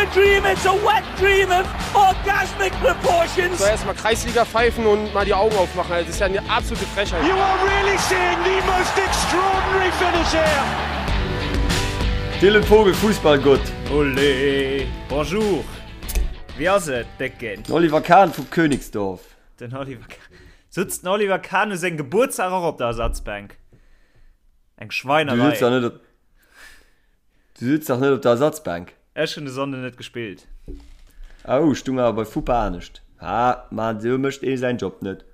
a dream, it's a wet dream of orgasmic proportions. So erstmal Kreisliga pfeifen und mal die Augen aufmachen. Das ist ja eine absolute Frechheit. You are really seeing the most extraordinary finish here. Dylan Vogel, Fussballgott. Olé! Bonjour! Wéi ass et, Décken? Den Oliver Kahn vu Königsdorf. Den Oliver Kahn. Sutzt den Oliver Kahn u sengem Gebuertsdag och op der Ersatzbänk? Eng Du Schweinerei. sutz dach net op. Du sutz dach net op der Ersatzbänk. Ech hunn de Sonnden net gespillt. Oh, stung awer bei Fupa anescht. Ha, ma esou mécht ee säin Job net.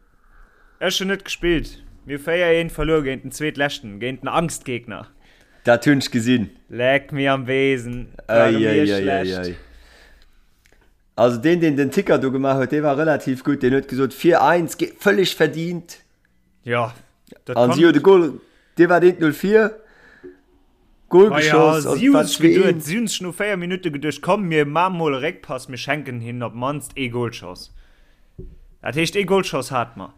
Ech hunn net gespillt. Mir hu 4, 1 verluer géint den Zweetleschten, géint den Angstgegner. Dat hunn ech gesinn. Leck mir am Besen, ware mir schlecht. Also deen, deen den Ticker do gemaach huet, dee war relativ gutt. Deen huet gesot 4, 1, völlig verdient. Ja, dat An si hu de Goal, dee war deen 04 Goal Ma ja, geschoss an si et hu war sech geduet, 2-1. si hunn sech no 4 Minutte geduecht, komm mir maache mol e Réckpass, mir schenken hinnen op d'mannst ee Golschoss. Dat heescht ee Golschoss hate mer.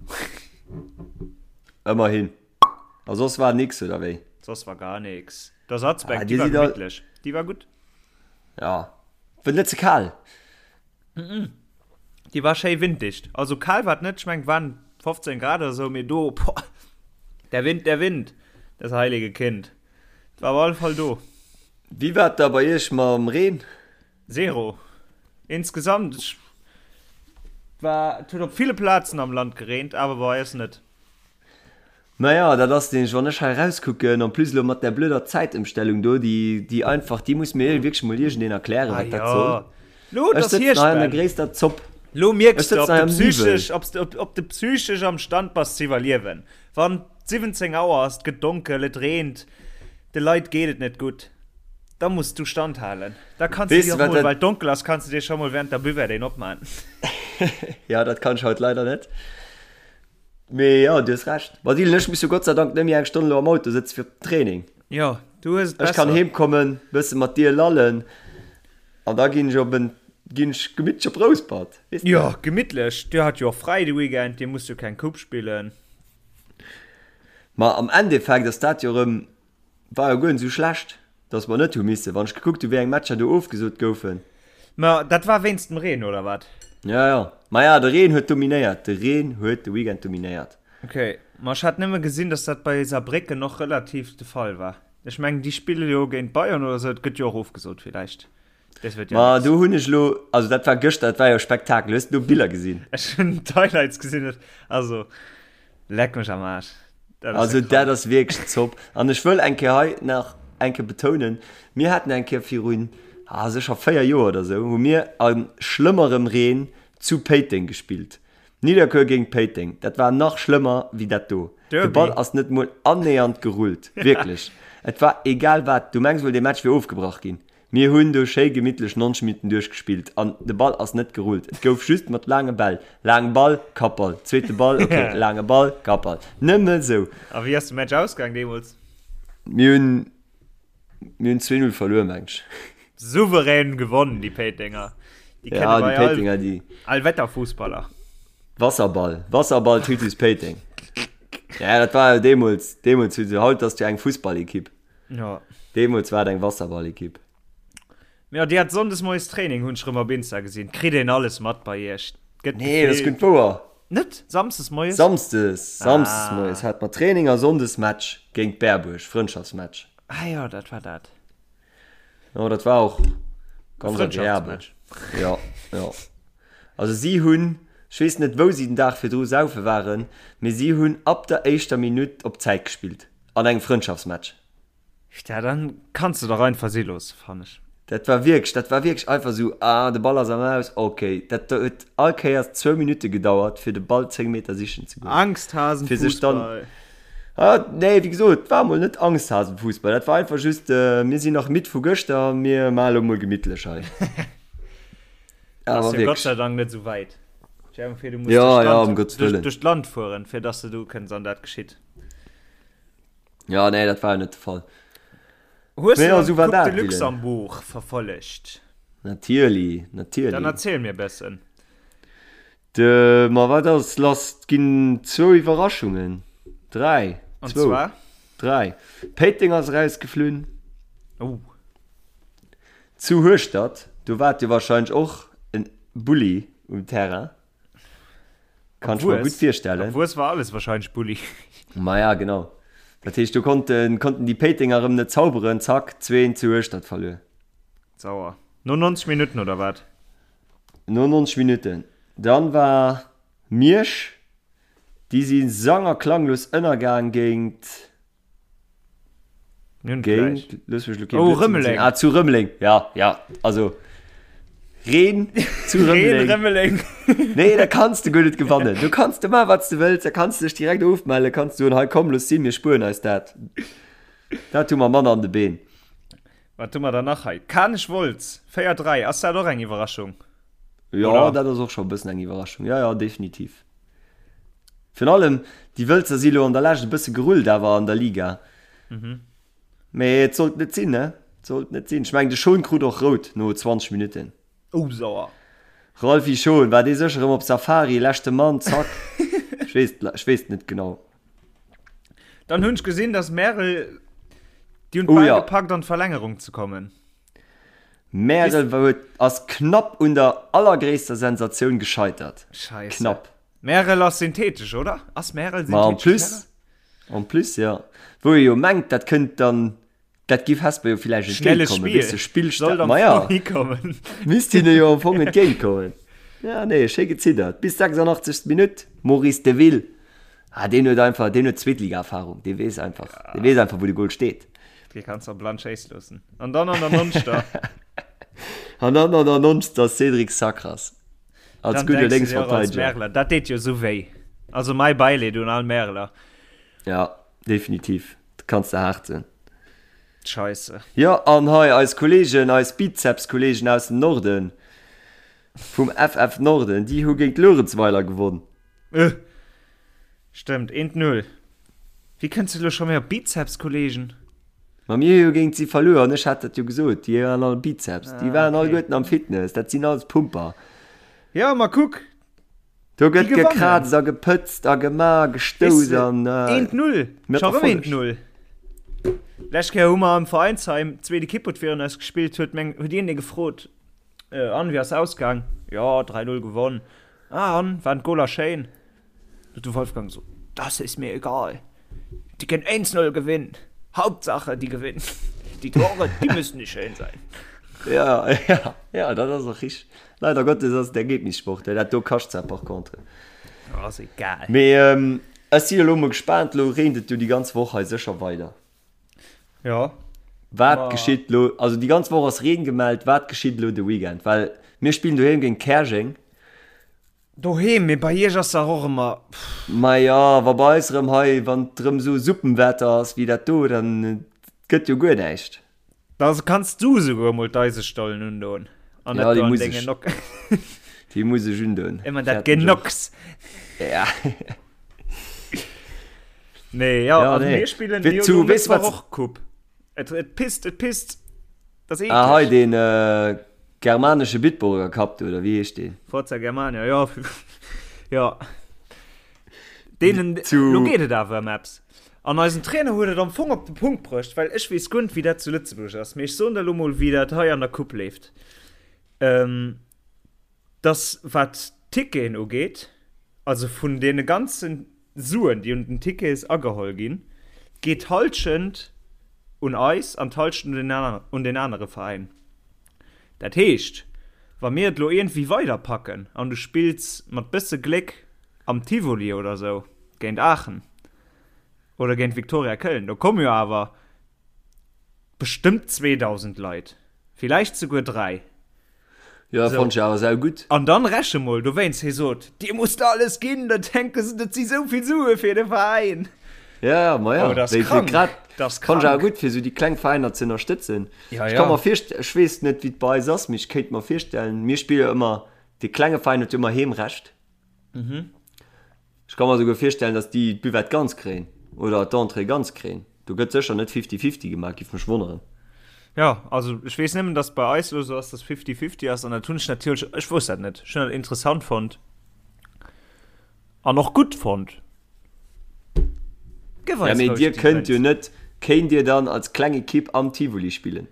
Ëmmerhin. A soss war nix, oder wéi? Soss war gar nix. D'Ersatzbänk, Ah, déi dir war sidd all. gemittlech, déi war gutt. Ja. War net ze kal? Déi war schéi winddicht. Also kal war et net, ech mengen et waren 15 Grad oder sou, mee do, boah, der Wind, der Wind, das heilige Kind, et war op alle Fall do. Wéi war et da bei iech mam Reen? Zero. Insgesamt, ech war, et huet op ville Plazen am Land gereent, awer bei eis net. Naja, dat ass nämlech, wann ech hei erauskucken, en plus elo mat där blöder Zäitëmstellung do, déi, déi einfach, déi muss mir wierklech mol iergendeen erklären, Ah wat dat soll. jo, lo, et Ech ass sëtzen Hierscht, hei an der Ben. gréisster Zopp. Lo Ech mierks de, sëtzen ob hei de am Niwwel. psychesch, ob s de, ob de psychesch am Stand bass ze iwwerliewen. Wann 17 Auer ass, et gëtt donkel, et reent, de Leit geet et net gutt, da muss du standhalen. Da kanns du Weess dir de, och wat mol, dat. well et donkel ass, kanns du dir scho mol während der Buvette een opman. Ja, dat kann ech haut leider net. Mee jo, du hues Recht. Ma Dylan, ech muss jo Gott sei Dank net méi eng Stonn elo am Auto sëtze fir op den Training. Jo, du hues et Ech kann besser. heem kommen, bësse mat dir lallen an da ginn ech op en, ginn ech gemittlech op Rouspert, weess de. Jo, gemittlech. Dir hat jo och fräi de Weekend, dir musst jo keng Coupe spillen. Ma am Endeffekt ass dat jo erëm War jo guer net esou schlecht, dass mer net hu missen, wann ech gekuckt hu wéi eng Matcher do ofgesot goufen. Ma dat war wéinst dem Reen, oder wat? Ja, ja. Maja, de Reen huet dominéiert. De Reen huet de Weekend dominéiert. Ok, ma ech hat nëmme gesinn, dass dat bei Saarbrécken och relativ de Fall war. Ech mengen, déi spille jo géint Bayern oder esou, et gëtt jo och ofgesot villäicht. Des wird ja Ma nix. do hunn ech elo, also dat war gëschter, dat war jo Spektakel. Hues du do Biller gesinn? Ech hunn d'Highlights gesinn, also leck mech am Aarsch. Dat ass also dat ass wierklech Zopp. An ech wëll eng Kéier hei nach eng Kéier betounen, mir haten eng Kéier virun, ah, sécher 4 Joer oder esou, hu mir a schlëmmerem Reen zu Péiteng gespillt. Nidderkuer géint Péiteng, dat war nach schlëmmer wéi dat do. De Ball ass net mol annähernd gerullt, wierklech. Et war egal wat, du mengs wuel dee Match wier ofgebrach ginn. Mir hunn do schéi gemittlech 90 Minutten duerchgespillt an de Ball ass net gerullt. Et gouf just mat laange Bäll, laange Ball, Kappball, zweete Ball, ok, laange Ball, Kappball. Nëmme sou. A wéi ass de Match ausgaang deemools? Mir hunn, mir hunn 2, 0 verluer, meng ech. Souverän gewonnen, déi Péitenger. Déi Ja, kenne déi bei all, Péitenger, déi. Allwetterfussballer. Wasserball, Wasserball Titus Péiteng. Ja, dat war jo deemools, deemools hu se, haut ass et jo eng Fussballekipp. Ja. Deemools war et eng Wasserballekipp. Ja, Dir hat sonndes moies Training, hunn ech rëm op Insta gesinn. Kritt een alles mat bei Iech? Gëtt Nee, dat ass gutt wouer. Net? Samsdes moies? Samsdes, samsdes moies hat mer Training a sonndes Match géint Berbuerg, Frëndschaftsmatch. Ah jo, dat war dat. Jo, dat war och ganz agreabel. Ja, ja. Also si hunn, ech weess net wou si den Dag virdru saufe waren, mee si hunn ab der éischter Minutt op Zäit gespillt. An engem Frëndschaftsmatch. Ja, dann kanns de dach einfach si loossen, fannen ech. Dat war wierklech, dat war wierklech einfach esou, ah, de Ball ass am Aus, okay. Dat huet all Kéiers zwou Minutte gedauert, fir de Ball 10 Meter sichen ze goen. Angsthasenfussball. Fir sech dann, ah, nee, wéi gesot, et war mol net Angsthasenfussball, dat war einfach just, mir sinn nach midd vu gëschter, mir maache lo mol gemittlech hei. Ass jo Gott sei Dank net esou wäit. Stell dir vir, du muss Ja, ja, um Gottes Wëllen. duerch d'Land fueren, fir dass de do kënns an dat geschitt. Ja, nee, dat war jo net de Fall. Hues Mee du ja, dann sou war d'Coupe dat, de Dylan. Luxembourg verfollegt? Natierli, Dann natierli. erziel mir e bëssen. De, ma wat ass lass? Et ginn zwou Iwwerraschungen. Dräi. An Zwou. zwar? Dräi. Péiteng ass erausgeflunn. Oh. Zu Hueschtert. Do war et jo wahrscheinlech och en Bulli um Terrain. Kann ech mer gutt virstellen. Am Wues war alles wahrscheinlech Bulli. Maja, genau. Dat heescht, do konnten, konnten déi Péitenger erëm net zauberen. Zack, 2 zu Hueschtert verluer. Sauer. No 90 Minutten, oder wat? No 90 Minutten. Dann war Miersch, déi si sang a klanglos ënnergaang géint. Géint, looss mech lo kee Oh, Blödsinn Rëmeleng. soen. Ah, zu Rëmeleng, ja, ja, also Reen zu Reen, Rëmeleng. Rëmeleng. Nee, da kanns de guer net gewannen. Du kanns de maachen, wat s de wëlls, da kanns de dech direkt ofmellen, kanns soen, hei komm, looss sinn, mir spueren eis dat. Dat hu mer manner an de Been. Wat hu mer dann nach hei? Kanech Wolz, 4, 3, ass dat och eng Iwwerraschung? Jo, Oder? dat ass och scho e bëssen eng Iwwerraschung. Ja, ja, definitiv. Virun allem, déi Wëlzer si lo an der Lescht e bësse gerullt awer an der Liga. Mee et sollt net sinn, ne? Et sollt net sinn. Ech mengen, de Schon krut och rout no 20 Minutten. Oh, sauer. Ralphy Schon, war dee sécher erëm op Safari, leschte Mann, zack. Ech weess, ech weess et net genau. Dann hunn ech gesinn, dass Märel, déi hunn Oh d'Bal ja. gepackt an d'Verlängerung ze kommen. Märel huet, ass knapp un der allergréisster Sensatioun gescheitert. Scheisse. Knapp. Märel ass synthetesch, oder? Ass Märel Ma en synthetesch plus, Terrain? en plus, ja. Wou ee jo mengt, dat kënnt dann, dat giff Hesper jo villäicht Schnelles entgéintkommen, Spiel. weess de, Spillsta-, Sollt am ma ja. Fong hikommen. Misst hinne jo am Fong entgéintkommen. Ja, nee, schéi geziddert. Bis 86. Minutt, Maurice Deville. Ah, deen huet einfach, deen huet Zweetliga-Erfahrung. Dee weess einfach, dee weess einfach, wou de Goal steet. Dee kanns de blann schéisse loossen. An dann an der Nonster. An dann an der Nonster Cédric Sacras. Als Dann gudde denkst du dir och als Lénksverteideger. Märeler, dat deet jo esou wéi. Also mäi Bäileed un all Märeler. Ja, definitiv. Dat kanns de haart soen. Scheisse. Jo, an hei eis Kollegen, eis Bizeps-Kollegen aus dem Norden, vum FF Norden, déi hu géint Luerenzweiler gewonn. Äh! Stëmmt, eent Null. Wéi kënns de elo scho méi op Bizeps, Kollegen? Ma mir hu jo géint si verluer an ech hat dat jo gesot, déi waren all Bizeps, déi Ah, waren okay. alleguerten am Fitness, dat sinn alles Pumper. Ja, ma kuck, Do déi gëtt gewannen. gekraazt a gepëtzt a gema, Weess gestouss de, an eent Null, mat scho rëm eent Erfolleg. Null. Lescht Kéier hu mer am Veräinsheim, d'zweet Ekipp huet virun eis gespillt, huet meng, huet een dee gefrot, äh, an, wéi ass ausgaang? Jo, 3, 0 gewonn. Ah, an, waren d'Goler schéin? Huet de Wolfgang gesot, Das ist mir egal. Die können 1-0 gewinnen. Hauptsache, die gewinnen. Die Tore, die müssen nicht schön sein. Ja, ja, ja, dat ass och richteg. Leider Gottes ass et Ergebnissport, dat do kascht zwar par contre. Oh, ass egal. Mee ähm, ech si elo mol gespaant, elo reent et jo déi ganz Woch hei sécher weider. Ja. Wat Ma geschitt lo, also déi ganz Woch ass Reen gemellt, wat geschitt elo de Weekend? Well mir spillen doheem géint Käerjeng. Doheem, mee bei iech ass dach och ëmmer, pff. Maja, wa bei eis erëm hei, wann et erëm esou Suppenwetter ass wéi dat do, dann gëtt jo guer näischt. Da kanns du esouguer emol d'Eisestollen undoen an Ja, net déi do an muss denge ech, Nock. déi muss ech undoen. Ëmmer dat Fäerten ech och. Genocks. Ja. Nee, ja, Ja, also nee. mir spillen Wéi jo zu, lo weess Mëttwoch wat, och Coupe. Et, et pisst, et pisst. Dat ass ah hei eekleg. deen germanesche Bitburger Cup do, oder wéi heescht deen? Forza Germania, jo. Jo. Deenen, Zu. lo geet et awer ëm eppes. An eisen Trainer huet et am Fong op de Punkt bruecht, well ech weess guer net, wéi dat zu Lëtzebuerg ass, mee ech soen der elo mol, wéi dat hei an der Coupe leeft. Ähm, dass wat d'Ticketen ugeet, also vun deene ganze Suen, déi un den Tickets ageholl ginn, geet d'Hallschent un eis an d'Hallschent un den anere Veräin. Dat heescht, wa mir et elo iergendwéi weiderpacken an du spills mat bësse Gléck am Tivoli oder sou géint Aachen oder géint Viktoria Köln, do komme jo awer bestëmmt 2.000 Leit, villäicht souguer 3. Jo, So. fonnt ech awer sau gutt. An dann reche mol dowéinst, hie sot, Dir musst alles ginn, da denke se, dat si sou vill Sue fir de Veräin. Ja, ma ja, Oh, dat ass wéi fir krank. grad Dat ass fonnt ech awer krank. gutt, fir sou déi kleng Veräiner ze ënnerstëtzen. Ja, Ech ka ja. mer virst-, ech weess net, wéi et bei eis ass, mee ech kéint mer virstellen, mir spille jo ëmmer, dee klenge Veräin huet jo ëmmer Heemrecht. Ech ka mer souguer virstellen, dass déi d'Buvette ganz kréien oder d'Entrée ganz kréien. Do gëtt sécher net fifty-fifty gemaach, giff mech wonneren. Jo, also ech weess nëmmen, dass bei eis elo sou ass, dass fifty-fifty ass an dat hunn ech natierlech, ech wousst dat net, ech hunn dat interessant fonnt an och gutt fonnt. Gëff Ja, eis mee roueg dir déi kënnt jo Grenz. net, kéint dir dann als kleng Ekipp am Tivoli spillen?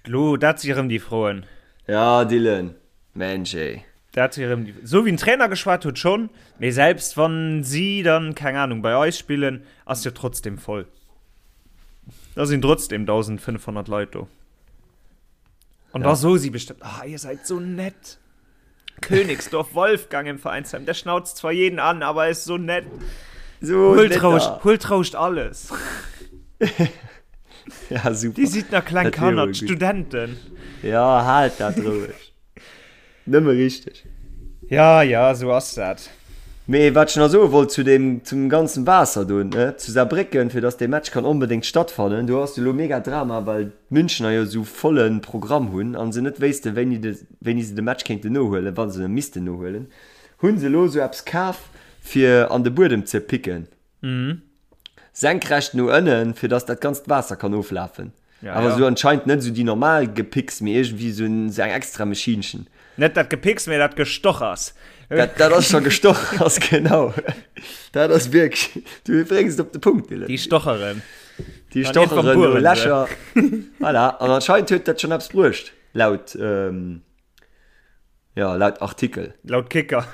Lo, dat si erëm déi Froen. Ja, Dylan, Mensch ey. Dat si erëm déi, sou wéi den Trainer geschwat huet schonn, mee selbst wann si dann, keng Ahnung, bei eis spillen, ass jo trotzdem voll. Da sinn trotzdem 1.500 Leit do. An da soe si bestëmmt, ah, ihr seid so nett. Königsdorf Wolfgang im Vereinsheim, der schnauzt zwar jeden an, aber er ist so nett. So Huelt nett roueg, da. huelt roueg alles. Ja, super. Déi sidd nach kleng Dat wär Kanner, wohl gut. d'Studenten. Ja, haalt dat roueg. Nëmme richteg. Ja, ja, sou ass dat. Mee wat ech nach soe wollt zu deem, zum ganzen Waasser do, ne, zu Saarbrécken, fir dass dee Match kann onbedéngt stattfannen, do ass jo elo mega Drama, well d'Münchener jo esou volle Programm hunn a se net wéissten, wéini de, wéini se de Match kéinten nohuelen, wa se e missten nohuelen, hu se elo esou eppes kaf, fir an de Buedem ze picken. Senkrecht no ënnen, fir dass dat ganzt Waasser kann oflafen. Ja, Awer ja. sou anscheinend net sou déi normal Gepicks, mee iergendwéi sou en, sou eng extra Maschinchen. Net dat Gepicks, mee dat Gestochers. Dat, dat ass scho Gestochers, genau. Dat ass wierklech, du bréngs et op de Punkt, Dylan. Déi stocheren. Déi An irgendwann stocheren do bueren se. Lächer. Voilà, an anscheinend huet dat schonn eppes bruecht, laut, ähm, Ja, laut Artikel. Laut Kicker.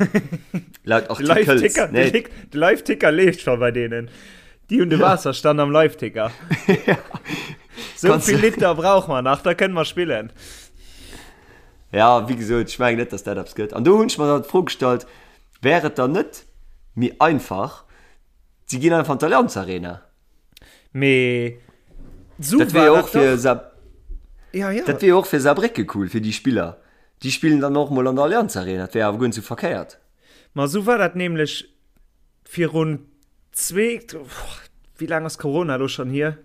Laut Artikels. Live-Ticker, Nee. de, de Live-Ticker leeft schon bei denen. Die hun de Wasserstand am Live-Ticker. ja. So Kannst viel du- Liter brauch man nach, da kënnen mer spillen. Ja, wéi gesot, ech mengen net, dass dat eppes gëtt. An do hunn ech mer dann d'Fro gestallt, wär et dann net méi einfach, si ginn einfach an d'Allianz Arena? Mee so Dat wär jo och fir dach. Saar Ja, ja. dat wär jo och fir Saarbrécke cool, fir déi Spiller. Déi spillen dann och mol an der Allianz Arena, dat wär awer guer net sou verkéiert. Ma sou war dat nämlech virun zwee, wéi laang ass Corona elo schonn hier?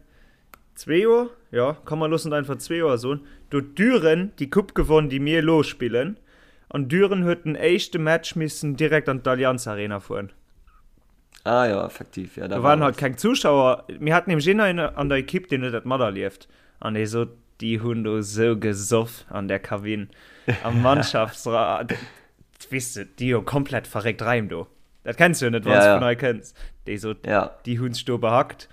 Zwee Joer? Jo, komm mer loossen et einfach zwee Joer soen. Do huet Düren déi Coupe gewonn, déi mir elo spillen. An Düren huet den éischte Match missen direkt an d'Allianz Arena fueren. Ah jo, effektiv, ja, da Do war waren halt was. keng Zuschauer. Mir haten nämlech een an der Ekipp, deen huet dat materlieft. An dee sot, déi hunn do sou gesoff an där Kabinn, am Mannschaftsra. Weess de, déi jo komplett verréckt Raim do. Dat kenns du jo net, wann Ja, s du ja. vun hei kënns. Déi sot, Ja. déi hunn sech do behackt.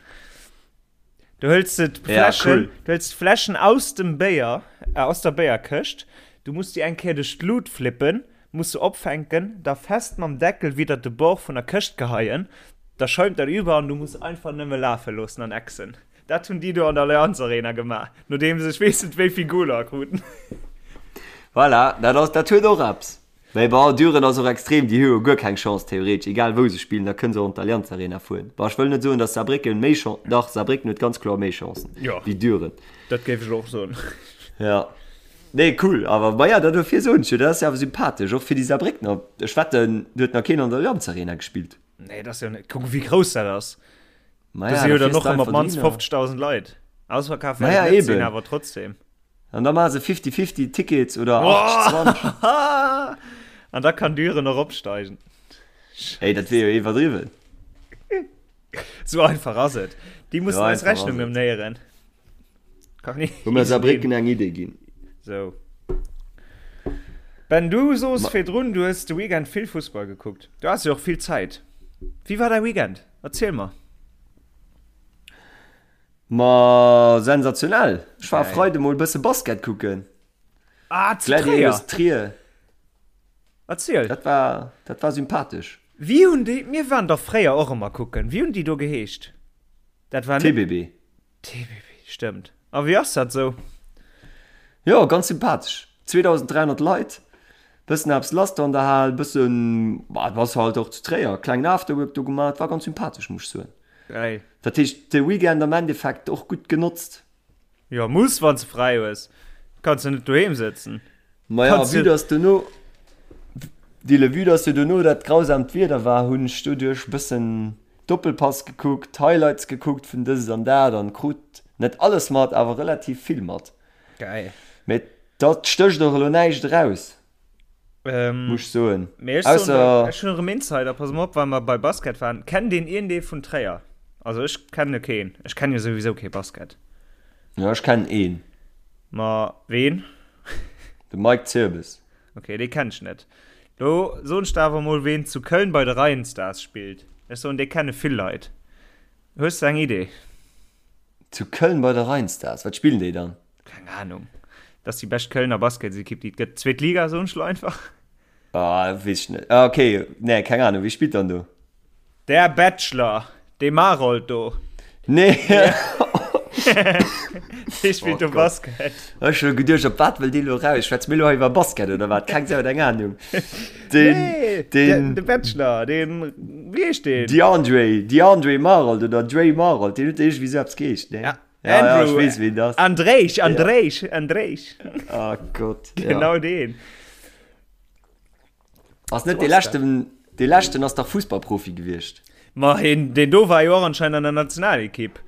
Du hëls de Ja, d'Fläschen, cool. du hëls d'Fläschen aus dem Béier, äh, aus der Béierkëscht, du muss déi eng Kéier duerch d'Lut flippen, muss se opfänken, da fest mam Deckel widder de Bord vun der Këscht geheien, da schäumt dat über an du muss einfach nëmme lafe loossen an exen. Dat hunn déi do an der Allianz Arena gemaach, nodeem se ech weess net wéi vill Goler kruten. Voilà, dat ass, dat huet och eppes. Mee bon, Düren ass och extrem, déi hu jo guer keng Chance theoretesch, egal wou se spillen, da kënne se och an d'Allianz Arena fueren. Bon, ech wëll net soen, datt Saarbrécken méi Chan-, dach, Saarbrécken huet ganz kloer méi Chancen Jo. wéi Düren. Dat géif ech och soen. Ja. Nee, cool, awer maja, dat dofir soen ech jo, dat ass jo awer sympathesch, och fir déi Saarbréckner. Ech wetten, do huet nach keen an der Allianz Arena gespillt. Nee, dat ass jo net, kuck wéi grouss dat ass. Maja, Do si jo da dann fiers och de ëmmer op einfach d'mannst dohinner. 50.000 Leit. Ausverkaf wäert Maja, et net sinn, eben. awer trotzdem. An da maache se 50-50 Tickets oder 80-20. An da kann Düren och opsteigen. Ey, dat wier jo iwwerdriwwen. Sou einfach ass et. Déi mussen So eis einfach ass Rechnung et. ëmnéieren. Kann Hu mir easy Saarbrécken ginn. eng Idee ginn. Sou. Ben, du soos Ma virdrun, du hues de Weekend vill Fussball gekuckt. Du has jo och vill Zäit. Wéi war däi Weekend? Erziel mer. Ma sensationell! Ech war e Geil. Freide mol bësse Basket kucken. Ah, zu Gladiators Tréier! Trier. Erziel. Dat war, dat war sympathesch. Wéi hunn déi, mir waren dach fréier och ëmmer kucken, wéi hunn déi do geheescht? Dat war net. TBB. TBB, stëmmt. A wéi ass dat sou? Jo, ganz sympathesch. 2.300 Leit, bëssen eppes lass do an der Hal, bëssen, bah, et ass halt och zu Tréier, klengen Afterwork do gemaach, war ganz sympathesch, muss ech soen. Geil. Dat heescht, de Weekend am Endeffekt och gutt genotzt. Jo, muss, wann s de fräi hues. Kanns jo net doheem sëtzen. Maja, Kanns vue jo. dass dono, Dille, vue dass jo dono dat grausamt Wieder war, hunn ech doduerch bëssen Doppelpass gekuckt, Highlights gekuckt vun dëst an dat an krut net alles mat, awer relativ vill mat. Geil. Mee dat stécht och elo näischt eraus, Ähm, muss ech soen. Mee ech soen Ausser. der, ech hunn erëm Insider, pass mol op, well mer bei Basket waren. Kennt een iergendee vun Tréier? Also ech kenne keen. Ech kenne jo souwisou kee Basket. Jo, ech kennen een. Ma ween? De Mike Zirbes. Ok, dee kennen ech net. Lo soen ech der awer mol ween zu Köln bei de Rheinstars spillt. Ech soen, dee kenne vill Leit. Hues de eng Idee? Zu Köln bei de Rheinstars? Wat spillen déi dann? Keng Ahnung. Dat ass déi bescht Kölner Basketsekipp, déi et gëtt. Zweet Liga, soen ech lo einfach. Ah, weess ech net. Ah, okay. Nee, keng Ahnung. Wie spillt dann do? Der Bachelor, dee Marold do. Nee. Dee spillt do Basket. Ech hu geduecht, op wat wëll dee lo raus? Schwätze mir lo hei iwwer Basket oder wat? Keng Sau huet eng Ahnung. Den, nee, den, de Bachelor, den, wéi heescht deen? DeAndre, DeAndre Marold oder Dre Marold, deen huet iergendwéi sou eppes geheescht, ne? Ja. Ja, Andrew, ja, ich wees, wen das. Andréich, Andréich, ja. Andréich. Ah oh Gott. Genau ja. den. Ass net de leschten, de leschten ass dach Fußballprofi gewiescht. Ma hin, den do war jo och anscheinend an der Nationalekipp.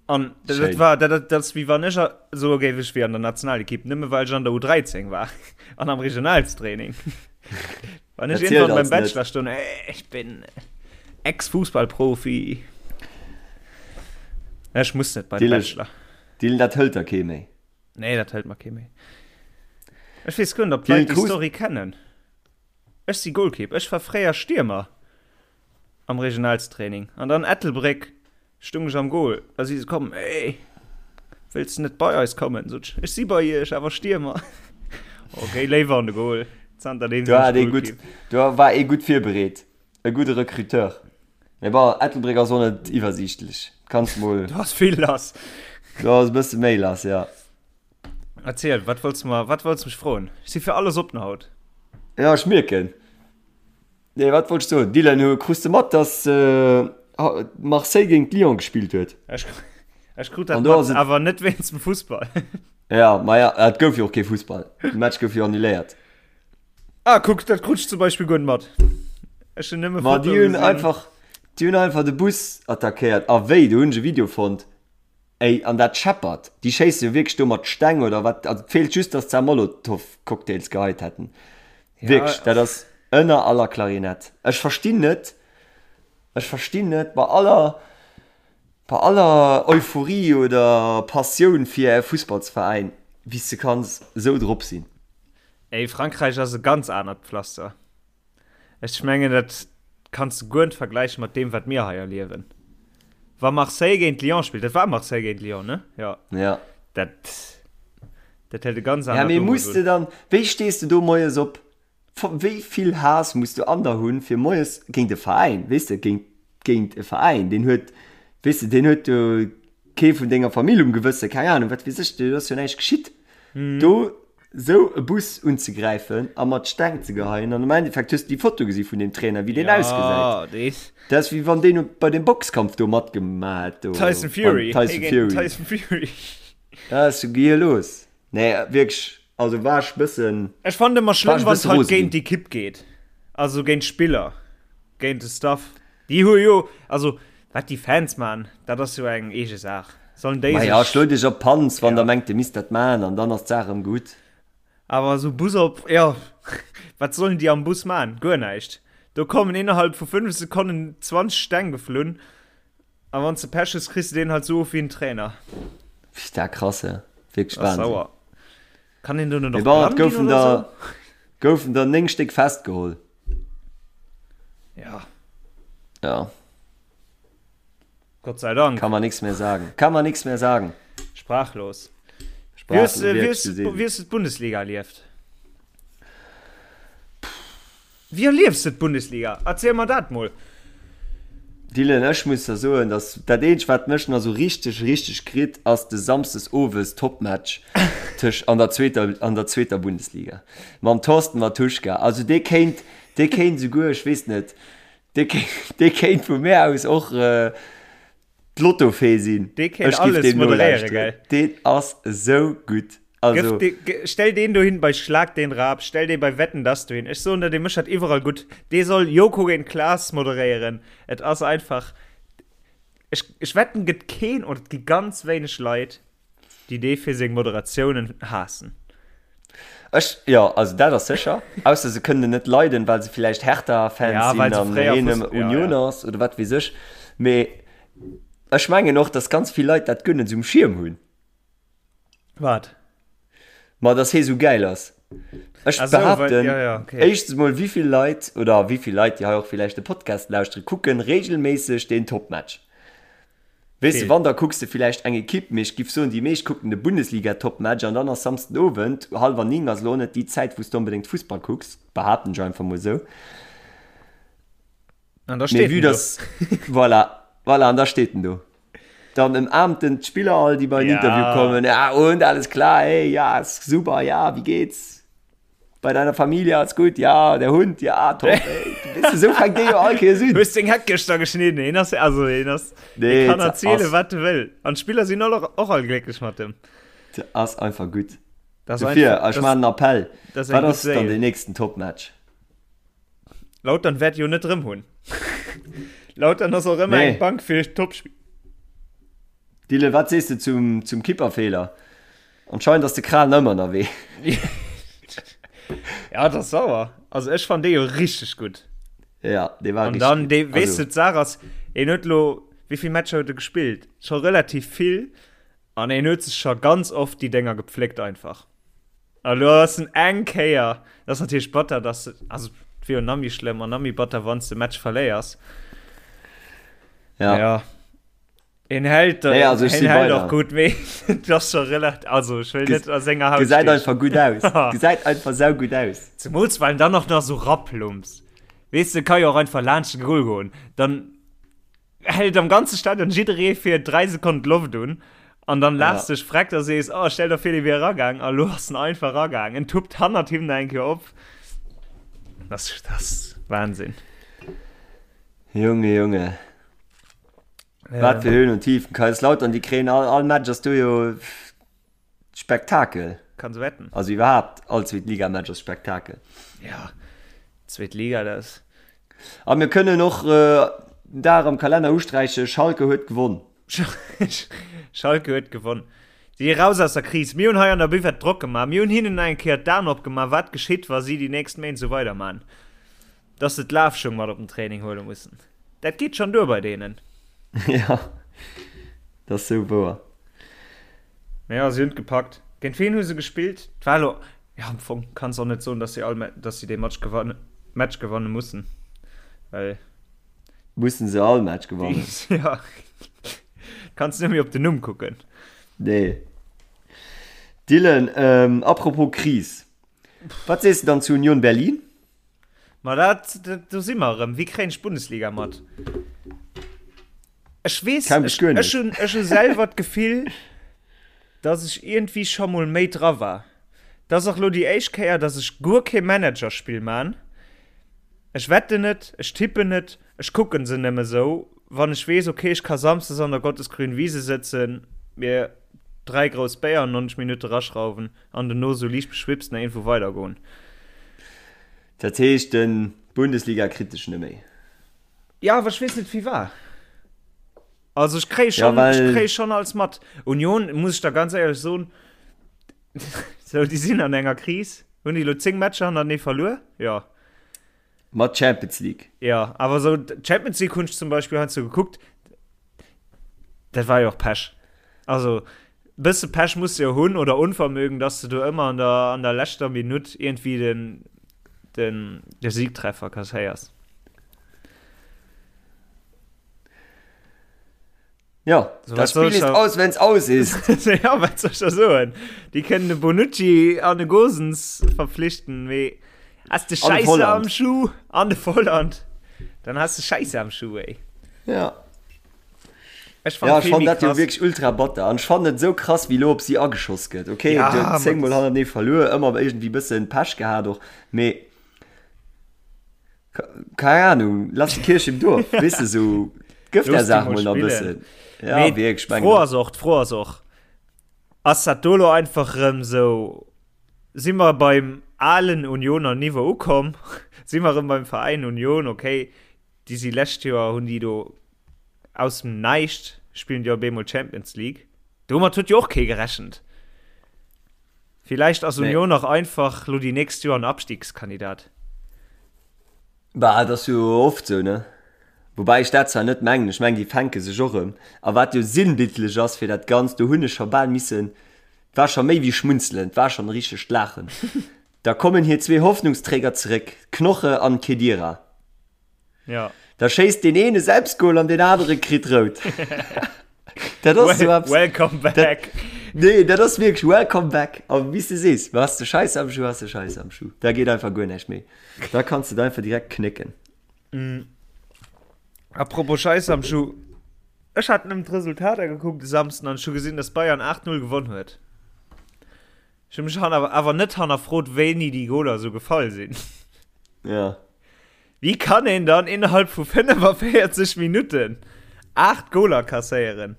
An dat, dat war dat, dat, dat wie wann ech so géif ech wie an der Nationalekipp, nëmme well ech an der U13 war an am Regionalstraining. Wann ech irgendwann beim Bachelor stoung, ey, ich bin Ex-Fußballprofi. Ech muss net bei den Bachelor. Dylan, dat hëlt der kee méi. Nee, dat hëlt mer kee méi. Ech weess guer net, ob d'Leit déi Story kennen. Ech si Goalkeep. Ech war fréier Stiermer am Regionalstraining. An dann Ettelbréck Stung ech am Goal, da si se komm, Ey, wëlls de net bei eis kommen? Sot ech, Ech si bei iech, awer Stiermer. Ok, léiwer an de Goal. Zanter deem sinn ech Goalkeep. Do war ee gutt virbereet, e gudde Recruteur. Mee bon, Ettelbréck ass och net iwwersiichtlech. Kanns mol. Do ass vill lass. Do ass e bësse méi lass, jo. Erziel, wat wollts de mer, wat wollts de mech froen? Ech si fir alles oppen haut. Jo, ech mierken. Nee, wat wollt ech soen? Dylan, hu krus de mat, dass Marseille géint Lyon gespillt huet? Ech, ech krut dat mat, awer net wéinst dem Fussball. Ja, ma ja, et gouf jo och kee Fussball. De Match gouf jo annuléiert. Ah, kuck, dat krut ech zum Beispill guer net mat. Ech hunn nëmme Fotoe gesinn. Ma déi hunn einfach, déi hunn einfach de Bus attackéiert. A wéi, do hunn ech e Video fonnt. Ey, an dat scheppert. Déi schéisse jo wierklech do mat Steng oder wat. Also et feelt just, dass se Molotow-Cocktails geheit hätten. Ja, wierklech, dat ass ënner aller Klarinett. Ech verstinn net, ech verstinn net, bei aller, bei aller Euphorie oder Passioun fir e Fussballsveräin, wéi s de kanns esou drop sinn. Ey, Frankräich ass e ganz anert Pflaster. Ech mengen dat kanns de guer net vergläichen mat deem wat mir hei erliewen. Wa Marseille géint Lyon spillt, dat war Marseille géint Lyon, ne? Jo. Ja. Dat dat hält e ganz anert Ja, mee muss de dann, wéi stees de do moies op? Wéi vill Haass muss du an der hunn, fir moies géint e Veräin, weess de, géint géint e Veräin, deen huet, weess de, deen huet do kee vun denger Famill um Gewëssen, keng Ahnung, wat weess ech, do ass jo näischt geschitt. Do Sou e Bus unzegräifen a mat Steng ze geheien an am Endeffekt hues de déi Foto gesi vun deem Trainer wéi deen ausgesäit. Dat ass wéi wann deen bei dem Boxkampf do matgemaach hätt do. Tyson Fury. Tyson Fury. Tyson Fury. Dat ass sou gehirlos. Nee wierklech, also war ech bëssen. Ech fannen ëmmer schlëmm wann et halt géint d'Ekipp geet, also géint d'Spiller, géint de Staff. Déi hu jo, also wat déi Fans man, dat ass jo eng eege Saach. Sollen déi sech. Maja, schlo dech op d'Panz, wann der mengt, dir misst dat man, an dann ass d'Saach erëm gutt. Awer esou Bus op, jo, wat sollen déi am Bus man? Guer näischt. Do kommen innerhalb vu 5 Sekonnen 20 Steng geflunn, a wann s de Pech hues, kriss de deen halt esou of wéi en Trainer. Pff, dat krass, he. Wierklech Wahnsinn. Sauer. Kann een do net och blann ginn oder sou? Goufen der 9 Stéck festgeholl. Ja. Ja. Gott sei Dank. Kann man nichts mehr sagen. Kann man nichts mehr sagen. Sprachlos. Sprachlos. Wie hast du, wie hast du d'Bundesliga erlieft? Wie erliefst du d'Bundesliga? Erzähl mer dat mol. Dylan, ech muss der soen, dass dat eenzegt wat mech nach sou richteg richteg kritt ass de Samsdes owes Topmatch tëscht an der zweeter an der zweeter Bundesliga mam Thorsten Mattuschka. Also dee kéint dee kéint souguer, ech weess net, dee kéint dee kéint vu mär aus och D'Lottofee sinn. Dee kéint alles moderéieren, gell? Deen ass esou gutt. Also. Stell deen dohin bei Schlag den Raab, stell dee bei Wetten dass dohin. Ech soen der, dee mécht dat iwwerall gutt. Dee soll Joko géint Klaas moderéieren. Et ass einfach, ech, ech wetten, gëtt keen oder et gi ganz wéineg Leit, déi dee fir seng Moderatiounen haassen. Ech, jo, also dat ass sécher. Ausser se kënnen en net leiden, well se villäicht Hertha-Fans ja, sinn an hien ja, Unioner ja. ass oder wat weess ech. Mee ech mengen och, datt ganz vill Leit dat guer net esou um Schierm hunn. Wat? Ma datt hie sou gäil ass. Ech so, behaapten, well, ja, ja, okay. éischtens mol, wéi vill Leit oder wéi vill Leit, déi hei och villäicht de Podcast lauschteren, kucken reegelméisseg deen Topmatch. Weess de, wann da kucks de villäicht eng Ekipp, mee ech giff soen, déi meescht kucken de Bundesliga-Topmatch an dann ass Samsden Owend, hallwer 9 ass elo och net déi Zäit, wou s de onbedéngt Fussball kucks, behaapten ech einfach mol esou. An da steet en do. Voilà, voilà, an da steet en do. Dann ëmaarmt en d'Spiller all, déi bei en Interview kommen, ja und, alles klar, hey, ja, ist super, ja, wie geht's? Bei deiner Familie alles gut? Ja, der Hund, ja, top, ey. Weess de, esou fänkt dee jo all Kéiers un. Hues deng Heck gëschter geschnidden? Hien ass, also hien ass, Nee, hie kann dat erzielen, ass- wat e wëll. An d'Spiller sinn all och, och all glécklech mat em. Dat ass einfach gutt. Dat ass Dofir, einfach, ech maachen en Appell. dat ass eng Wat gutt ass dann Séil. deen nächsten Topmatch? Lautern wäert jo net rëm hunn. Lautern ass och ëmmer Nee. eng Bank fir Topspill. Dylan, wat sees de zum, zum Kipperfeeler? Anscheinend ass de Kral ëmmer ënnerwee. Ja, dat ass sauer. Also ech fand dee jo richteg gutt. Ja, dee war An richteg dann, gutt. dee, weess Also, du, d'Saach ass, en huet lo, wéi vill Matcher huet e gespillt? Scho relativ vill. An en huet sech scho ganz oft déi Dénger gepfléckt einfach. A lo ass en eng Kéier, dat ass natierlech batter, dass de, also et wier jo nach méi schlëmm an nach méi batter, wann s de Match verléiers. ja. Ja. En hält, Nee, also ech en si hält bei och der. gutt, mee et ass scho relativ, also ech wëll net a senger Haut Gesäit stiechen. einfach gutt aus. Gesäit einfach saugutt aus. Zemools well en dann och nach sou raplumps. Weess de, ka jo och einfach laanscht de Goal goen. Dann hält am ganze Stadion jidderee fir 3 Sekonnen d'Loft un an dann laachs Ja. dech freck a sees, oh, stell der vir, dee wier eragaang. A lo ass en einfach eragaang. En tuppt hannert him nach eng Kéier op. Das, das Wahnsinn. Junge, Junge. Wat fir Höhen und Tiefen. Kaiserslautern, déi kréien all, all Match ass do jo Spektakel. Kanns wetten. Also iwwerhaapt all Zweetligamatch ass Spektakel. Ja, zweet Liga, dat ass. A mir kënnen och äh, den Dag am Kalenner usträichen, Schalke huet gewonn. Schalke huet gewonn. Si raus aus der Kris. Mir hunn hei an der Buvette Drock gemaach. Mir hunn hinnen eng Kéier d'Aen opgemaach, wat geschitt, wa si déi nächst Méint esou weiderman. Dass se d'Lafschung mat op den Training huele mussen. Dat geet schonn duer bei deenen. Ja, dat ass sou wouer. Mee jo, si hunn et gepackt. Géint ween hu se gespillt? Et war elo, jo am Fong kanns och net soen, dass si all, dass si dee Match gewannen, Match gewanne mussen, well. Mussen se all Match gewannen? Ja, kanns net méi op den Numm kucken. Nee. Dylan, apropos Kris, wat sees de dann zu Union Berlin? Ma dat, dat, do si mer erëm. Wéi kréien ech d'Bundesliga mat? Ech weess, Kaum bis ech, guer net. ech hunn, ech hu selwer d'Gefill, dass ech iergendwéi scho mol méi dra war. Dat ass och lo déi éischt Kéier, dass ech guer kee Managerspill man. Ech wetten net, ech tippen net, ech kucken se nëmme sou, wann ech weess, okay, ech ka samsdes an der Gottesgrün Wiese sëtzen, mir 3 grouss Béier an 90 Minutte raschrauwen an dono sou liicht beschwipst nach iergendwou weidergoen. Dat heescht, den Bundesliga kritt dech neméi. Jo, awer ech weess net firwat. Also ech kréie Ja, schon, ech well. kréie schon alles mat. Union, muss ech der ganz éierlech soen, sou déi sinn an enger Kris. Hunn déi elo 10 Matcher hannertenee verluer? Jo. Mat Champions League. Jo, awer sou d'Champions League hunn ech zum Beispill heiansdo gekuckt. Dat war jo och Pech. Also bësse Pech muss de jo hunn oder Onvermögen, dass de do ëmmer an der, an der leschter Minutt iergendwéi den, den, de Siegtreffer kasséiers. Ja, So, das wat soll Spiel ich ist da- aus, wenn's aus ist. ja, wat soll ich da soen? Déi kënnen de Bonucci an de Gosens verpflichten, mee has de An de Scheiße Volland. am Schuh an de Volland, dann has de Scheiße am Schuh, ey. Ja. Ech fand Ja, ech vill fand méi dat jo krass. wierklech ultra batter. An ech fand et esou krass, wéi lo op si ageschoss gëtt. Okay, Ja, du huet ma zéngmol das- hannertenee verluer, ëmmer iergendwéi bëssen Pech gehat och, mee Keine Ahnung, lass die Kirche im Dorf, weißt du, so, gëff der Saach mol nach e bëssen. Ja, Mee wierklech, meng d'Fro ass och, d'Fro ass och, ass dat do lo einfach rëm sou, si mer beim alen Unioner Niveau ukomm, si mer rëm beim Veräin Union, okay, déi si lescht Joer, hunn déi do aus dem Näischt, spillen déi op eemol Champions League, domat huet jo och kee gerechent. Villäicht ass Union och einfach lo déi nächst Joer en Abstiegskandidat. Bah, et ass jo oft sou, ne? Woubäi ech dat zwar net mengen, ech mengen déi fänke sech och erëm. A wat jo sinnbildlech ass fir dat Ganzt, do hunn ech scho bal missen, et war scho méi wéi schmunzelen, et war schonn e richtegt Laachen, da kommen hir zwee Hoffnungsträger zeréck, Knoche an Khedira. Ja. Da schéisst deen een e Selbstgol an deen anere kritt rout. Dat ass esou eppes. Welcome back. Dat, nee, dat ass wierklech welcome back. A wéi s de sees, has de Scheiss am Schuh, has de Scheiss am Schuh. Da geet einfach guer näischt méi. Da kanns de et einfach direkt knécken. Mm. Apropos Scheiss am Schuh. Ech hat nëmmen d'Resultater gekuckt de Samsden an ech hu gesinn, dass Bayern 8-0 gewonn huet. Ech hu mech awer, awer net hannerfrot, wéini déi Goler esou gefall sinn. Ja. Wéi kann een dann innerhalb vu 45 Minutten 8 Goler kasséieren?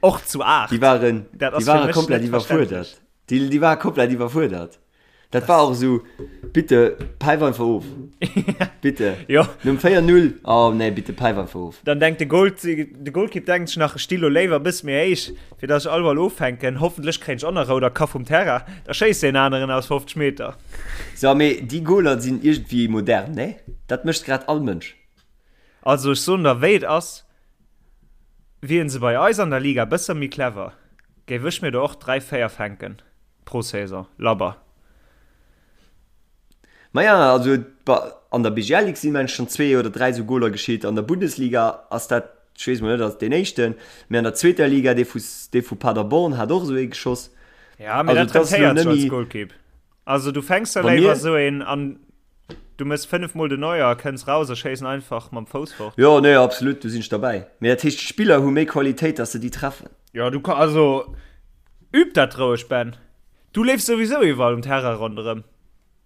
Och zu 8. Déi waren, Dat déi ass fir ware mech komplett net iwwerfuerdert. verständlech. Déi, déi ware komplett iwwerfuerdert. Dat war och esou, bitte päif einfach of. Bitte. Jo. Nom 4-0, oh nee, bitte päif einfach of. Dann denkt de Goal, de Goalkeep denkt sech nach, ech sti lo léiwer e bësse méi héich, fir dass ech all Ball offänken. Hoffentlech kréien ech och nach rout a ka vum Terrain. Da schéisst deen aneren aus 50 Meter. So, mee déi Goaler sinn iergendwéi modern, nee? Dat mécht grad all Mënsch. Also ech soen der wéi et ass, wieren se bei eis an der Liga bësse méi clever, géif ech mir der och 3, 4 fänken pro Saison, labber. Maja, also an der BGL Ligue sinn mengen ech schonn zwee oder dräi esou Goaler geschitt. An der Bundesliga ass dat, ech weess mol net, ass deen éischten, mee an der zweeter Liga, dee vu dee vu Paderborn hat och esou ee geschoss. Ja, mee Also dat et ass elo rentéiert sech net als méi. Goalkeep. Also du fänks der Wa léiwer mir. esou een an du mëss 5 mol den Neuer a kënns raus a schéiss en einfach mam Fouss fort. Jo, nee, absolut, do sinn ech derbäi. Mee dat heescht, d'Spiller hu méi Qualitéit, dass se déi treffen. Jo, du ka, also üb dat roueg, Ben. Du leefs souwisou iwwerall um Terrain ronderëm.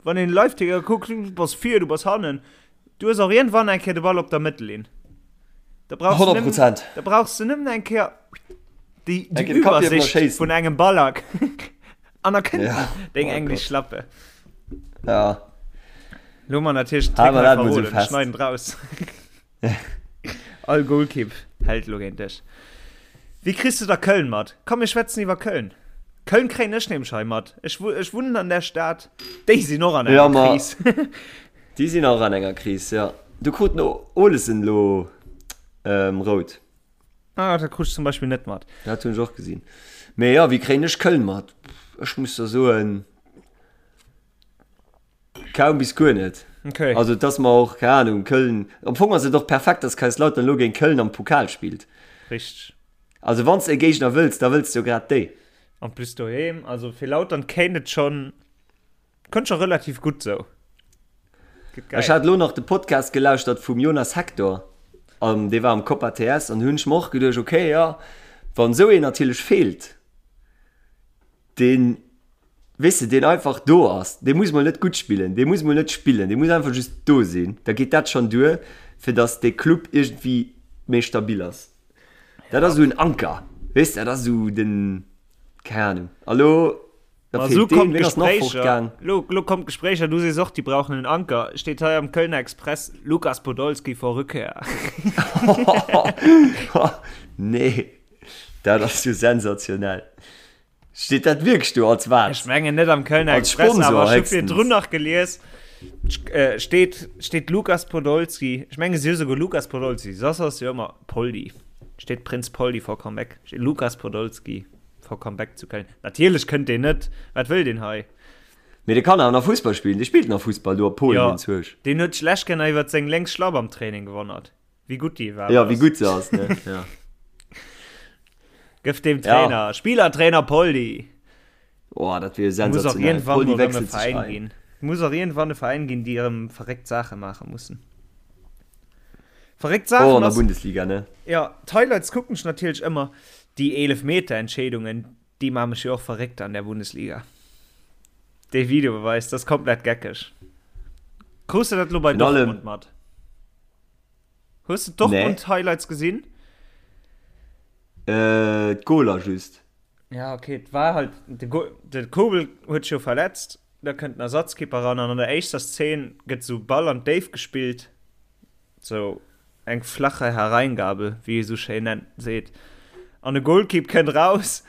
Wann een Liveticker kuckt, du bass vir, du bass hannen. Du hues och iergendwann eng Kéier de Ball op der Mëttellinn. Da brauchs du 100 nëmmen, Prozent. da brauchs du nëmmen eng Kéier déi, Eng déi Kéier de Kapp hiewen a Iwwersicht schéissen. vun engem Ballack an da kënnt Ja, deng oh englesch Gott. Schlappe. Ja. Lo man natierlech den Hale Trick mer hei dat mol sou verroden, fest. schneiden draus. All Goalkeep hält lo géint dech. Wéi kriss du da Köln mat? Komm mir schwätzen iwwer Köln. Köln kréien ech nämlech hei mat. Ech, ech wunnen an der Stad. Déi sinn och an Ja, enger ma Kris. déi sinn och an enger Kris, ja. Do krut den Olesen lo ähm, rout. Ah, dat krut ech zum Beispill net mat. Dat hunn ech och gesinn. Mee ja, wéi kréien ech Köln mat? Ech muss der soen, Kaum bis guer net. Okay. Also et ass mer och, keng Ahnung, Köln, am Fong ass et och perfekt, dass Kaiserslautern elo géint Köln am Pokal spillt. Richteg. Also wann s de e Géigner wëlls, da wëlls de jo grad déi. En plus doheem, also fir Lautern kéint et schonn, kënnt scho relativ gutt sou. Gëtt geil. Ech hat elo nach de Podcast gelauschtert vum Jonas Hector, an dee war am Copa TS, an do hunn ech mer och geduecht, okay, jo, wann esou een natierlech feelt, deen, weess de, deen einfach do ass, dee muss mol net gutt spillen, dee muss mol net spillen, dee muss einfach just do sinn, da geet dat schonn duer, fir datt dee Club iergendwéi méi stabil ass. Dat ass esou en Anker, weess de, dat ass esou den, keng Ahnung. A lo, da Ma esou feelt deen, kommen wien ass nach d'Gespréicher, fortgaang? lo, lo kommen d'Gespréicher, du sees och, déi brauchen en Anker, steet hei am Kölner Express, Lukas Podolski vor Rückkehr. Nee, dat ass jo sensationell. Steet dat wierklech do als wat? Ech mengen net am Kölner Als Express, Sponsor awer ech hu héchstens. virdrun nach gelies, äh, steet, steet Lukas Podolski. Ech menge si hu souguer Lukas Podolski, soss ass jo ëmmer Poldi. Steet Prinz Poldi for Comeback. Steet Lukas Podolski for Comeback zu Köln. Natierlech kënnt deen net. Wat wëll deen hei? Mee dee kann awer nach Fussball spillen. Dee spillt nach Fussball do a Polen, Jo, deen Zwerg. deen huet sech lescht Kéier nach iwwert seng lénks Schlapp am Training gewonnert. Wéi gutt déi iwwerhaapt Ja, wéi gutt se ass, ne? Ja. Gëff dem Trainer, ja. Spielertrainer Poldi. Oh, dat wier sensationell. Poldi wechselt sich ein. Ginn. Muss och irgendwann e Veräin ginn, déi erëm verréckt Saache maache mussen. Verréckt Saachen. Oh, an der Bundesliga, ne? Ja, d'Highlights kucken ech natierlech ëmmer. Déi Eelefmeter-Entscheedungen, déi maache mech jo och verréckt an der Bundesliga. Dee Videobeweis, dat ass komplett geckeg. Krus de dat lo bei Dortmund mat? Hues de d'Dortmund Highlights gesinn? Äh, d'Goler just. Ja, okay, et war halt de Go de Kobel huet sech jo verletzt, da kënnt den Ersatzkeeper ran an an der éischter Szene gëtt sou Ball an d'Déift gespillt, sou eng flache Hereingabe, wéi ee sou schéin nennt seet, an de Goalkeep kënnt raus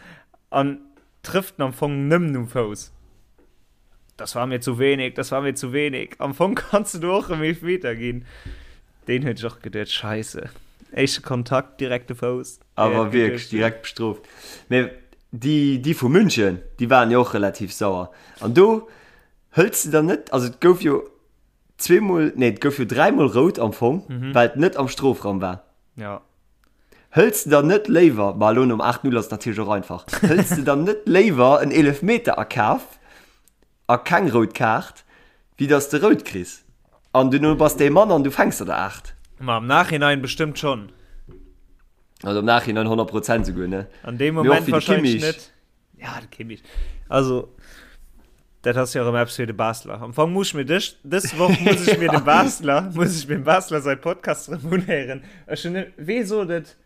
an trëfft en am Fong nëmmen um Fouss. Das war mir zu wenig, das war mir zu wenig. Am Fong kanns du do och em Eelfmeter ginn. Deen huet sech och geduet, Scheisse, éischte Kontakt, direkt de Fouss. Awer wierklech direkt bestrooft. Mee déi, déi vu München, déi waren jo och relativ sauer. An do hëls de dann net, also et gouf jo zweemol, nee et gouf jo dräimol rout am Fong, well et net am Strofraum war. Ja. Hëls de dann net léiwer, ma elo nom 8, 0 ass et natierlech och einfach, hëls de dann net léiwer en Eelefmeter a Kaf a keng rout Kaart, wéi dass de rout kriss an duerno bass de ee Mann an du fänks der der 8? Ma am Nachhinein bestëmmt schonn. Also am Nachhinein 100 Prozent souguer, ne? An deem Moment wahrscheinlech net. Ja, de Kimmich. Also, dat ass jo erëm eppes fir de Basler. Am Fong muss ech mir dës, dës Woch muss ech mir dem Basler, muss ech mir dem Basler säi Podcast erëm unhéieren. Ech hunn, wee sot et?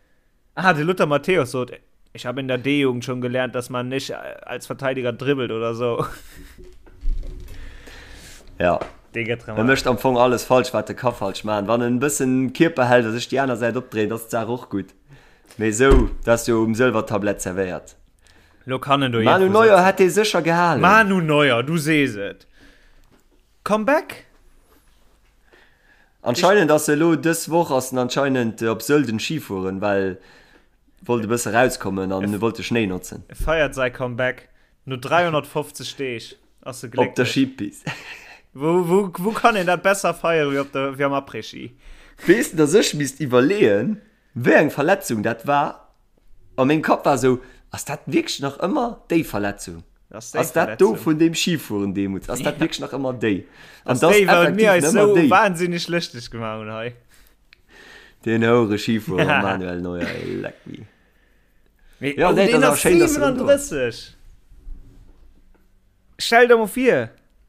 Ah, de Lothar Matthäus sot, ich habe in der D-Jugend schon gelernt, dass man nicht als Verteidiger dribbelt oder so. Ja. Dee gëtt erëm. E mécht am Fong alles falsch, wat e ka falsch maachen. Wann en e bëssen Kierper hält a sech déi aner Säit opdréint, ass d'Saach och gutt. Mee esou, dat ass jo um Sëlwertablett servéiert. Lo kann en do Manu Neuer hätt dee sécher gehalen. Manu Neuer, du sees et. Comeback? Anscheinend ass e lo dës Woch ass en anscheinend op Sölden Ski fueren, well wollt e bësse rauskommen an e wollt de Schnéi notzen. E feiert säi Comeback no 350 Deeg ass e glécklech. Op der Skipist. Wou, wou, wou kann een dat besser feiere wéi op der, wéi am Après-Ski? Weess de, dass ech misst iwwerleeën, Wéi eng Verletzung dat war? A mengem Kapp war esou, Ass dat wierklech nach ëmmer déi Verletzung? Ass dat do vun deem Schifueren deemools? Ass dat wierklech nach ëmmer déi? An dat ass effektiv nach ëmmer déi. Wahnsinneg lëschteg gemaach hunn hei. Deen houere Schifuerer Manuel Neuer, ey, leck mi. Mee, ja, nee, deen ass 37! Stell der mol vir,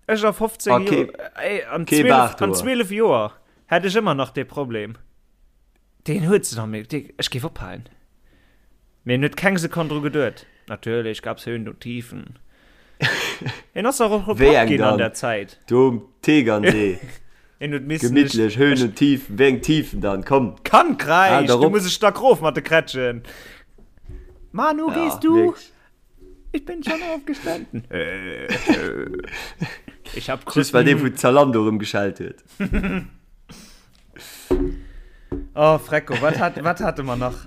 ech a 15 ah, Joer, ey, an 12, an 12 Joer hätt ech ëmmer nach dee Problem. Deen huet se nach méi, dee, ech géif ophalen. Mee en huet keng Sekonn dru geduet. Natürlich gab's Höhen und Tiefen. En ass och och Wéi eng ginn an der Zäit. Do um Tegernsee. En huet missen. Gemittlech, Höhen und Tiefen. Wéi eng Tiefen dann? Komm. Kann kräischt, du muss ech stack rof mat de Krätschen. Manu, ja, gehst du? Wirklich. Ich bin schon aufgestanden. Ich hab Just well dee vu Zalando erëm geschellt huet. Oh, Frecko, wat hat, wat hate mer nach?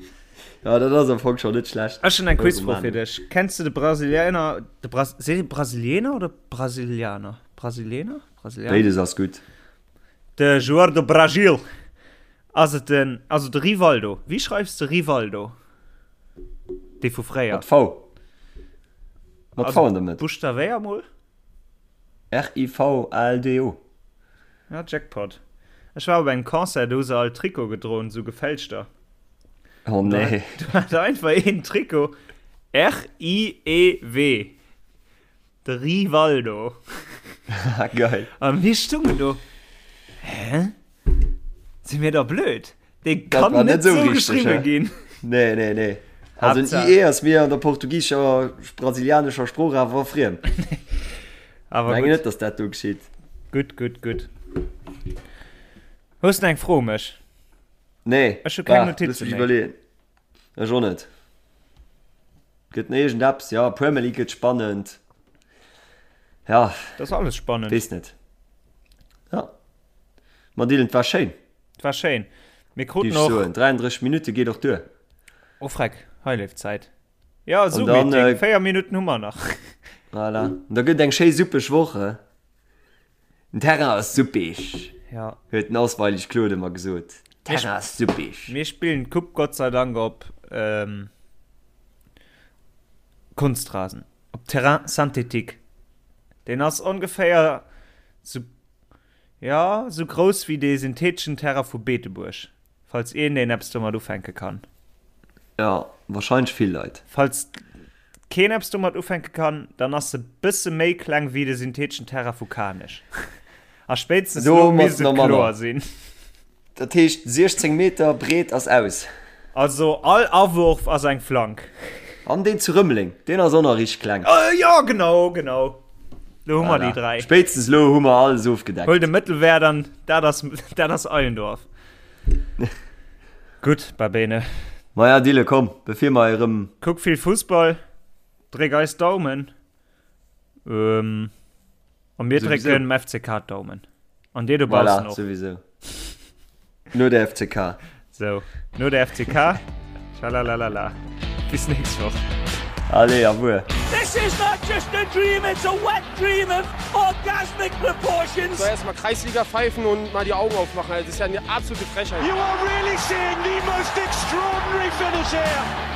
Ja, dat ass am Fong schon net schlecht. Ech hunn eng Quizfro fir dech. Kenns du de Brasilianer, de Bras, seet ee Brasilianer oder Brasilianer? Brasilianer? Brasilianer? Béides ass gutt. De Joueur do Brasil. Ass et den, also de Rivaldo. Wéi schreifs de Rivaldo? Dee vu fréier. Mat V. Mat V an der Mëtt. Buschtawéier mol. R-I-V-A-L-D-O. Ja, Jackpot. Ech war op engem Concert, do hu se all Trikot gedroen, sou gefälschter. Oh nee. Do hat einfach een Trikot R-I-E-W. De Rivaldo. Geil. A mir stungen do. Hä? Si mir da blöd? Dee kann net, net sou geschriwwe ginn. Nee, nee, nee. Also en IE ass mir an der portugiescher, brasilianescher Sprooch awer friem. Awer Meng net, dass dat do geschitt. Gutt, gutt, gutt. Hues de eng Fro u mech? Nee. Ech hu keng Notize méi. Iwwerleeën. Ech och net. Gëtt nach iergend eppes? Ja, Premier League gëtt spannend. Ja. Dat ass alles spannend. Weess net. Ja. Ma Dylan, 't war schéin. 't war schéin. Mir kruten och. Soen, 33 Minutte geet och duer. Oh freck, hei leeft d'Zäit. Ja, Zoom-Meeting, 4 Minutten hu mer nach. Voilà. An da gëtt eng schéi suppeg Woch, he? Den Terrain ass suppeg, ja. huet den Osweilig Claude ëmmer gesot. Terrain ass suppeg. Mir spillen d'Coupe Gott sei Dank op ähm, Kunstrasen, op Terrain synthétique. Deen ass ongeféier sou Jo, sou grouss wéi dee syntheteschen Terrain vu Beetebuerg, falls een deen eppes domat ufänke kann. Jo, wahrscheinlech vill Leit. Falls keen eppes domat ufänke kann, dann ass se bësse méi kleng wéi de syntheteschen Terrain vu Kanech. A spéitstens elo misst et kloer sinn. Dat heescht 16 Meter breet ass aus. Also all Awurf ass eng Flank. An deen zu Rëmeleng, deen ass och nach richteg kleng. Jo, genau, genau. Lo hu mer déi 3. Spéitstens lo hu mer alles ofgedeckt. Huel de Mëttelwäert an dat ass, dat ass Eilendorf. Gutt, Babene. Maja, Dille, komm, bevir mer erëm. Kuck vill Fussball, dréck eis Daumen. A mir drécken dem FCK d'Daumen. An dir dobaussen och. Voilà, souwisou. No der FCK. So, no der FCK. Schalalalala. Bis nächst Woch. Allez, au revoir. This is not just a dream, it's a wet dream of orgasmic. orgasmic proportions. So erstmal Kreisliga pfeifen und mal die Augen aufmachen. Das ist ja eine absolute Frechheit. You are really seeing the most extraordinary finish here.